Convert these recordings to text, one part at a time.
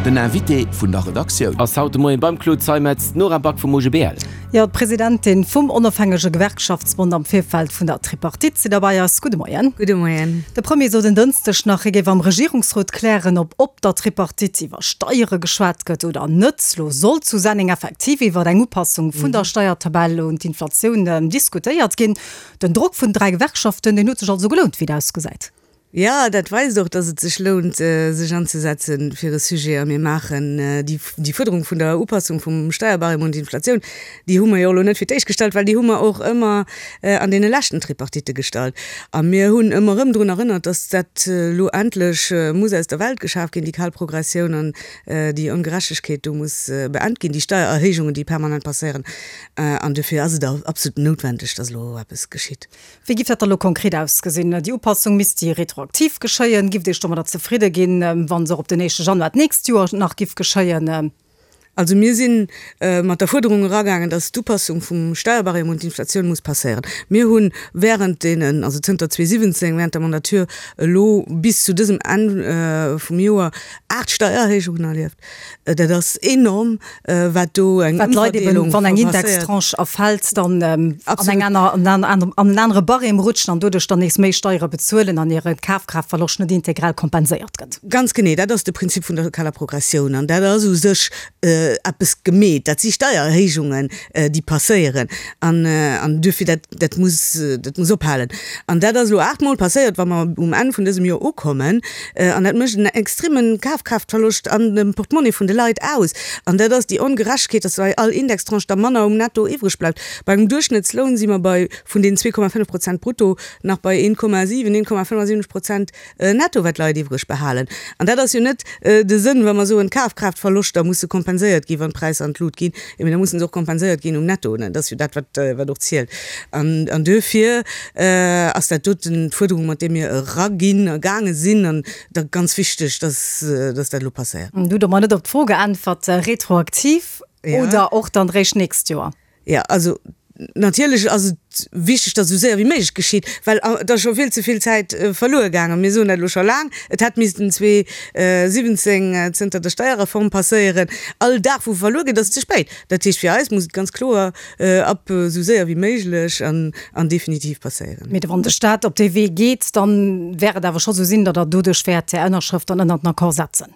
Den Invité vun der Redaktioun. Ass haut de Moien beim Claude Zeimetz d'Nora Back vum OGBL. Jo, d'Presidentin vum Onofhängege Gewerkschaftsbond am Virfeld vun der Tripartite si derbei ass. Gudde Moien. Gudde Moien. De Premier sot en Dënschdeg nach, hie géif am Regierungsrot klären, ob op der Tripartite iwwer Steiere geschwat gëtt oder net. Lo soll zu Senneng effektiv iwwer eng Upassung vun der Steiertabell un d'Inflatioun diskutéiert ginn. Den Drock vun 3 Gewerkschaften, deen huet sech also gelount, wéi et ausgesäit. Jo, dat weist och, datt et sech lount, sech anzesetze fir e Sujet. A mir maachen déi Fuerderung vun der Upassung vum Steierbarème un d'Inflatioun, déi hu mer jo elo net fir d'éischt gestallt, well déi hu mer och ëmmer an deene leschten Tripartitte gestallt. A mir hunn ëmmer erëm drun erënnert, datt dat elo endlech muss aus der Welt geschaf ginn, déi kal Progressioun an déi Ongerechtegkeet do muss beent ginn, déi Steiererhéijungen, déi permanent passéieren. An dofir ass et absolut noutwendeg, datt elo eppes geschitt. Wéi giff dat da lo konkret ausgesinn? Déi Upassung misst déi retroaktiv geschéien? Gifft Iech domadder zefridde ginn, wa se och op den éischte Januar d'nächst Joer nach giff geschéien? Also mir si mat der Fuerderung eragaangen, datt d'Upassung vum Steierbarème un d'Inflatioun muss passéieren. Mir hu während deenen, also zënter 2017, während der Mandature elo bis zu dësem Enn vum Joer, 8 Steiererhéijungen erlieft. Dat ass enorm, wat do eng Wat d'Leit eben, wann eng Indextranche erfält, dann an eng aner, an en anere Barème rutschen an doduerch dann nees méi Steiere bezuelen an hire Kafkraaftverloscht net integral kompenséiert gëtt. Ganz genee, dat ass de Prinzip vun der lokaler Progressioun an dat ass u sech eppes gemeet. Dat si Steiererhéijungen, déi passéieren an duerfir, dat, dat muss, dat muss ophalen. An dat ass elo aachtmol passéiert, wa mer um Enn vun dësem Joer ukommen. An dat mécht en extreme Kafkraaftverloscht an dem Portemonnaie vun de Leit aus. An dat ass déi Ongerechtegkeet, dass bei all Indextranche da manner um Netto iwwreg bleift. Bei engem Duerchschnëttsloun si mer bei, vun deenen 2,5 Prozent brutto, nach bei 1,7, 1,75 Prozent Netto, wat d'Leit iwwreg behalen. An dat ass jo net de Sënn, wa mer soen, d'Kafkraaftverloschter musse kompenséiert ginn, wann d'Präisser an d'Lut ginn. Mee da musse se och kompenséiert ginn um Netto. Dat ass jo dat, wat och zielt. An duerfir ass dat doten d'Fuerderung, mat där mir eraginn a gaange sinn. An da ganz wichteg, dass dat elo passéiert. Du hutt och mer net op d'Fro geäntwert, retroaktiv oder och dann eréischt d'nächst Joer? Jo, also natierlech ass et wichteg, datt esou séier wéi méiglech geschitt, well et ass scho vill ze vill Zäit verluer gaangen. Mir soen dat elo scho laang, et hätt missten 2017 zënter der Steierreform passéieren. All Dag wou verluer geet, ass ze spéit. Dat heescht, fir eis muss et ganz kloer ab esou séier wéi méiglech an definitiv passéieren. Mee wann de Staat op dee Wee geet, da wäert et awer scho sou sinn, datt Der doduerch wäert Är Ënnerschrëft dann ënnert den Accord setzen.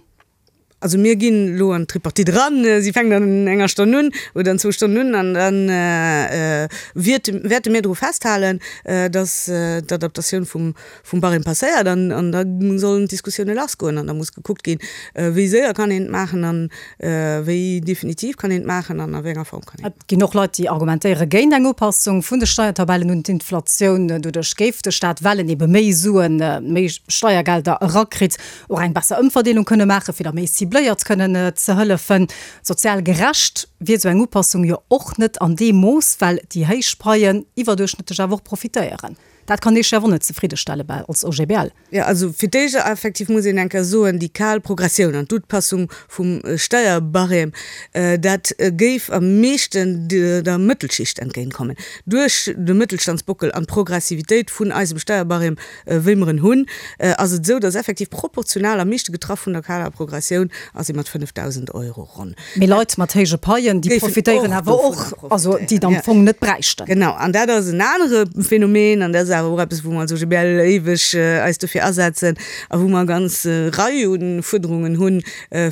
Also mir ginn elo an d'Tripartite eran, si fänkt an enger Stonn un oder an zwou Stonnen un an da wäerte mir dru festhalen, datt d'Adaptatioun vum Barème passéiert an da sollen d'Diskussioune lassgoen an da muss gekuckt ginn, wéi séier kann een et maachen an wéi definitiv kann een et maachen an a wéi enger Form kann een et. Et ginn och Leit, déi argumentéiere géint eng Upassung vun de Steiertabellen un d'Inflatioun. Doduerch géif de Staat, well en ebe méi Suen, méi Steiergelder erakritt, och eng besser Ëmverdeelung kënne maachen, fir da méi cibléiert kënnen ze hëllefen. Sozial gerecht wier esou eng Upassung jo och net an deem Mooss, well déi héich Paien iwwerduerchschnëttlech awer och profitéieren. Dat kann Iech jo awer och net zefriddestelle bal als OGBL. Jo, also fir d'éischt effektiv muss een eng Kéier soen, déi kal Progressioun an d'Upassung vum Steierbarème, dat géif am meeschten der Mëttelschicht entgéintkommen. Duerch de Mëttelstandsbockel an d'Progressivitéit vun eisem Steierbarème Wéi mer en hunn, ass et esou, dass effektiv proportional am meeschte getraff vun der kaler Progressioun ass ee mat 5.000 Euro ronn. Mee Leit mat héije Paien, déi profitéieren awer och, also déi et am Fong net bräichten. Genau, an dat ass en anere Phänomen an dat ass awer och eppes, wou mer als OGBL éiweg eis dofir asetzen a wou mer e ganz Rei u Fuerderungen hunn,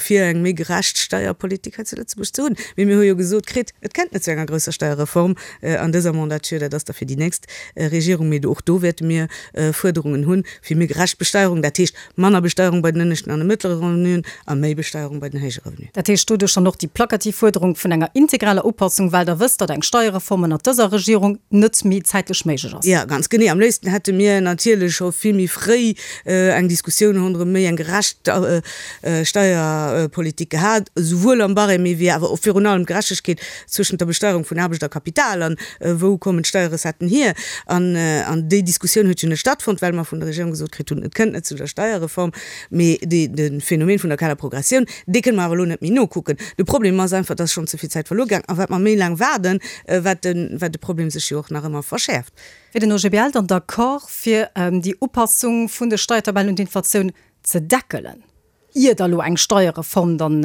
fir eng méi gerecht Steierpolitik hei zu Lëtzebuerg ze hunn. Mee mir hu jo gesot kritt, et kennt net zu enger grousser Steierreform an dëser Mandature, dat ass da fir déi nächst Regierung, mee och do wäerte mir Fuerderungen hunn fir méi gerecht Besteierung, dat heescht manner Besteierung bei den ënneschten an de mëttlere Revenuen a méi Besteierung bei den héije Revenuen. Dat heescht doduerch dann och déi plakativ Fuerderung vun enger integraler Upassung, well Der wësst, datt eng Steierreform ënnert dëser Regierung net méi zäitlech méiglech ass. Jo, ganz genee. Am léifsten hätte mir natierlech scho vill méi fréi eng Diskussioun ronderëm méi eng gerecht Steierpolitik gehat, esouwuel am Barème wéi awer och virun allem d'Gerechtegkeet zwëschent der Besteierung vun Aarbecht a Kapital an wou kommen d'Steierrecetten hier. An déi Diskussioun huet jo net stattfonnt, well mer vun der Regierung gesot kritt hunn, et kënnt net zu der Steierreform. Mee de Phänomen vun der kaler Progressioun, dee kënne mer awer elo net méi nokucken. De Problem ass einfach, dass schonn ze vill Zäit verluer gaang a wat mer méi laang waarden, wat de Problem sech jo och nach ëmmer verschäerft. Wier den OGBL dann d'accord, fir déi Upassung vun de Steiertabellen un d'Inflatioun ze deckelen? Ier da lo eng Steierreform dann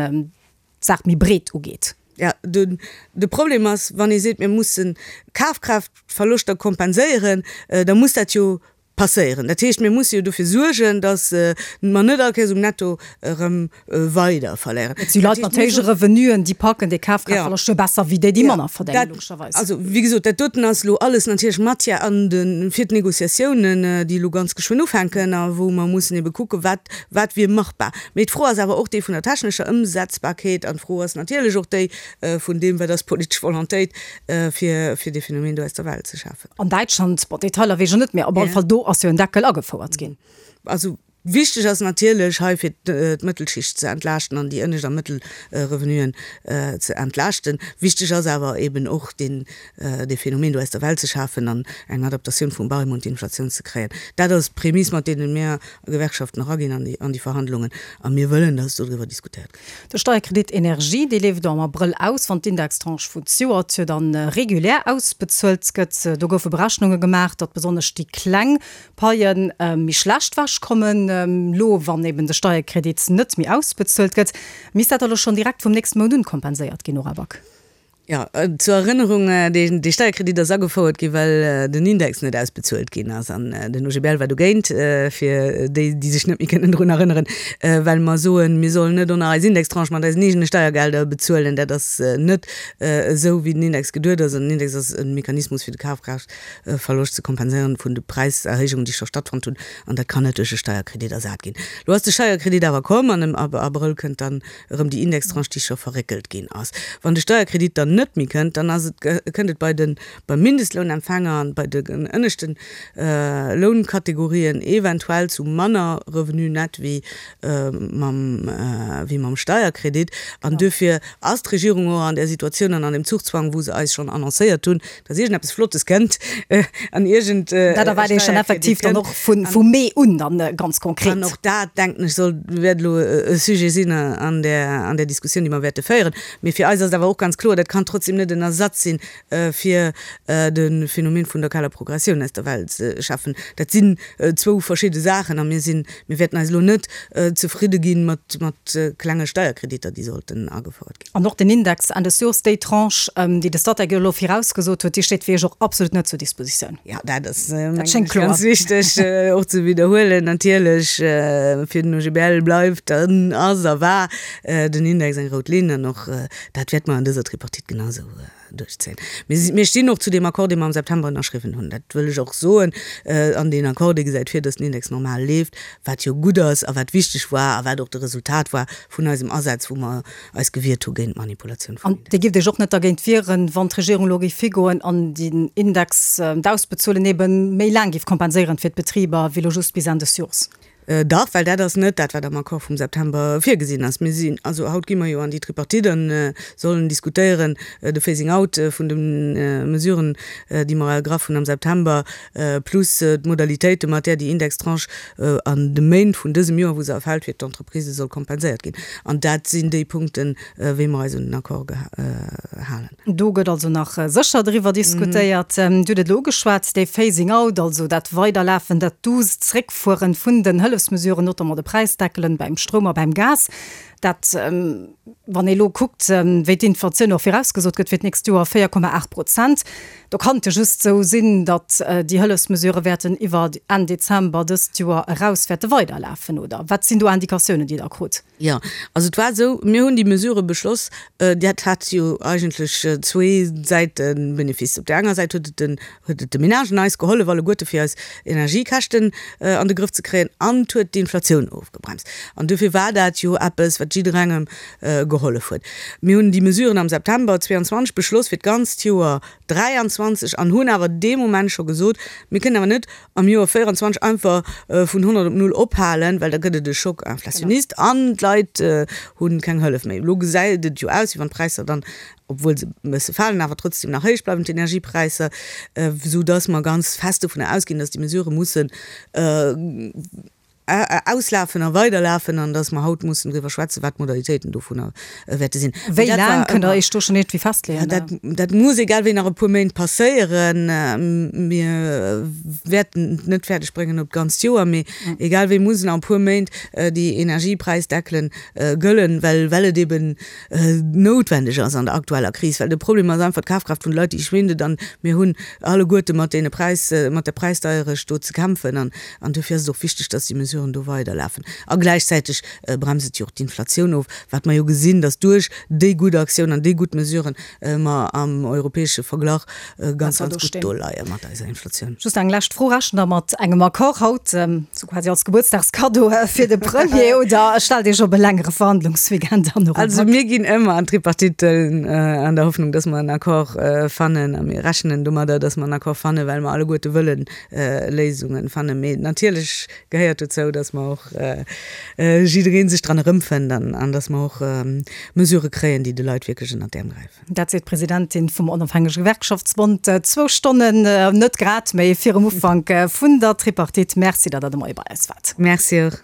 d'Saach méi breet ugeet. Jo, de Problem ass, wann ee seet, mir mussen Kafkraaftverloschter kompenséieren, da muss dat jo passéieren. Dat heescht, mir musse jo dofir suergen, datt mer net all Kéiers um Netto erëm weider verléieren. Et si Leit mat héije Revenuen, déi packen dee Kafkraaftverloscht jo besser wéi déi, déi manner verdéngen, logescherweis. Also, wéi gesot, dat doten ass elo alles natierlech Matière an de fir d'Négociatiounen, déi elo ganz geschwënn ufänken a wou mer mussen ebe kucken, wat Wat wier machbar? Mee d'Fro ass awer och déi vun der technescher Ëmsetzbarkeet an d'Fro ass natierlech och déi vun deem, wat ass d'politesch Volontéit, fir fir dee Phänomen do aus der Welt ze schafen. An Däitschland, bon, Detailer weess ech net, mee op alle Fall do ass jo en Deckel agefouert ginn. Also wichteg ass natierlech hei fir d'Mëttelschicht ze entlaaschten an déi ënnescht a mëttel Revenuen ze entlaaschten. Wichteg ass awer eben och deen dee Phänomen do aus der Welt ze schafen an eng Adaptatioun vum Barème un d'Inflatioun ze kréien. Dat ass d'Prämiss, mat deene mir Gewerkschaften eraginn an déi an déi Verhandlungen a mir wëllen, dass dodriwwer diskutéiert gëtt. De Steierkredit Energie, dee leeft am Abrëll aus, wann d'Indextranche vun zejoert jo dann regulär ausbezuelt gëtt. Do goufe Berechnunge gemaach, datt besonnesch déi kleng Paie méi schlecht ewech kommen, elo wann eben de Steierkredit net méi ausbezuelt gëtt. Misst dat da elo schonn direkt vum nächste Mount un kompenséiert ginn, Nora Back? Jo, zur Erënnerung, dee Steierkredit ass agefouert ginn, well den Index net ausbezuelt ginn ass. An den OGBL war dogéint, fir déi, déi sech net méi kënnen drun erënneren, well mer soen, mir sollen net ënner eis Indextranche mat eisen eegene Steiergelder bezuelen. Dat ass net esou, wéi den Index geduet ass. An den Index ass e Mechanismus, fir de Kafkraaftverloscht ze kompenséieren vun de Präiserhéijungen, déi scho stattfonnt hunn. An dat kann net duerch e Steierkredit ersat ginn. Elo ass de Steierkredit awer komm an am Abrëll kënnt dann erëm déi Indextranche, déi scho verréckelt ginn ass. Wann de Steierkredit dann net méi kënnt, dann ass et, kënnt et bei de, beim Mindestlounempfänger an bei de ënneschte Lounkategorien eventuell zu manner Revenu net wéi mam, wéi mam Steierkredit. An duerfir ass d'Regierung och an där Situatioun an an deem Zugzwang, wou se eis schonn annoncéiert hunn, dass iergendeppes Flottes kënnt an iergend e Dat erwaart ee schonn effektiv dann och vu Mee un dann ganz konkret. An och dat, denken ech, soll, wäert elo e Sujet sinn an där, an där Diskussioun, déi mer wäerte féieren. Mee fir eis ass et awer och ganz kloer, dat kann trotzdem net en Ersatz si fir de Phänomen vun der kaler Progressioun aus der Welt ze schafen. Dat sinn zwou verschidde Saachen a mir sinn, mir wäerten eis elo net zefridde gi mat, mat klenge Steierkreditter, déi sollten agefouert ginn. An och den Index Enn des Jors, déi Tranche, déi de Statec elo virausgesot huet, déi steet fir Iech och absolut net zur Dispositioun. Jo, dat ass, mengen ech, ganz wichteg och ze widderhuelen. Natierlech, fir den OGBL bleift an ass a war den Index eng rout Linn an och dat wäerte mer an dëser Tripartite genau esou duerchzéien. Mir stinn och zu deem Accord, dee mer am September ënnerschriwwen hunn. Dat wëll ech och soen. An deen Accord, dee gesäit vir, dass den Index normal leeft, wat jo gutt ass a wat wichteg war a wat och de Resultat war vun eisem Asaz, wou mer eis gewiert hu géint d'Manipulatioun vum An Index. Dir gifft Iech och net dergéint wieren, wann d'Regierung elo géif higoen an den Index, d'Ausbezuelen ebe méi laang géif kompenséieren fir d'Betriber, wéi elo just bis Enn des Jors? Dach, well dat ass net dat, wat am Accord vum September virgesinn ass. Mir sinn, also haut gi mer jo an déi Tripartite an sollen diskutéieren de Phasing out vun de Mesuren, déi mer ergraff hunn am September, plus d'Modalitéite mat där déi Indextranche an de Méint vun dësem Joer, wou se erfält, fir d'Entreprisen soll kompenséiert ginn. An dat sinn déi Punkten, wéi mer eis un den Accord gehalen. Do gëtt also nach sécher driwwer diskutéiert. Dir hutt et elo ugeschwat, dee Phasing out, also dat Weiderlafen, dat duusst Zréckfueren vun den Hëllefsmesuren, notamment de Präisdeckelen beim Stroum a beim Gas. Dat, wann ee elo kuckt, wéi d'Inflatioun och virausgesot gëtt fir d'nächst Joer, 4,8 Prozent, do kann et jo just esou sinn, datt déi Hëllefsmesurë wäerten iwwer Enn Dezember dëst Joer eraus wäerte weiderlafen, oder? Wat sinn do Indikatiounen, déi Der krut? Jo, also et war esou, mir hunn déi Mesure beschloss, dat hat jo eigentlech zwee Säite Benefice. Op där enger Säit huet et den, huet et de Menagen eis gehollef alleguerte fir eis Energiekäschten an de Grëff ze kréien an et huet d'Inflatioun ofgebremst. An dofir war dat jo eppes, wat jidderengem gehollef huet. Mir hunn déi Mesuren am September 22 beschloss fir d'ganzt Joer 23 an hunn awer dee Moment scho gesot, mir kënnen awer net am Joer 24 einfach vun 100 op null ophalen, well da gëtt et e Choc inflationniste an d'Leit hu keng Hëllef méi. Elo gesäit et jo aus, wéi wann d'Präisser dann, obwuel se e bësse falen, awer trotzdem nach héich bleiwen, d'Energiepräisser, soudass mer ganz fest dovunner ausginn, dass déi Mesurë mussen. auslafen a weiderlafen an dass mer haut mussen driwwer schwätzen, wat d'Modalitéiten dovunner wäerte sinn. Wéi laang, kënnt Der Iech do schonn iergendwéi festleeën? Dat, dat muss egal wéi nach e puer Méint passéieren. Mir wäerten et net fäerdeg bréngen op d'ganzt Joer, mee egal wéi mussen nach e puer Méint déi Energiepräisdeckelen gëllen, well, well et eeben noutwendeg ass an der aktueller Kris. Well de Problem ass einfach, d'Kafkraaft vun de Leit, déi schwindet an mir hunn alleguerte mat deene Präis, mat der Präisdeierecht do ze kämpfen an, an duerfir ass et och wichteg, dass déi Mesuren do weiderlafen. A gläichzäiteg bremst et jo och d'Inflatioun of, wat mer jo gesinn, dass duerch déi gutt Aktioun an déi gutt Mesuren mer am europäesche Verglach ganz, ganz gutt do leie mat eiser Inflatioun. Just eng lescht Fro, Rechent Der mat engem Accord haut, sou quasi als Gebuertsdagskaddo fir de Premier, oder stellt Iech op e längere Verhandlungsweekend an? Also mir ginn ëmmer an d'Tripartite an der Hoffnung, dass mer en Accord fannen. A mir rechnen domadder, dass mer en Accord fannen, well mer alleguerte wëllen Léisungen fannen. Mee natierlech gehéiert dozou, dass mer och jidderee sech dran erëmfënnt an dass mer och Mesurë kréien, déi de Leit wierklech ënnert d'Äerm gräifen. Dat seet d'Presidentin vum Onofhängege Gewerkschaftsbond zwou Stonnen, net grad méi, virum Ufank vun der Tripartite. Merci, datt Der de Moie bei eis waart. Merci och.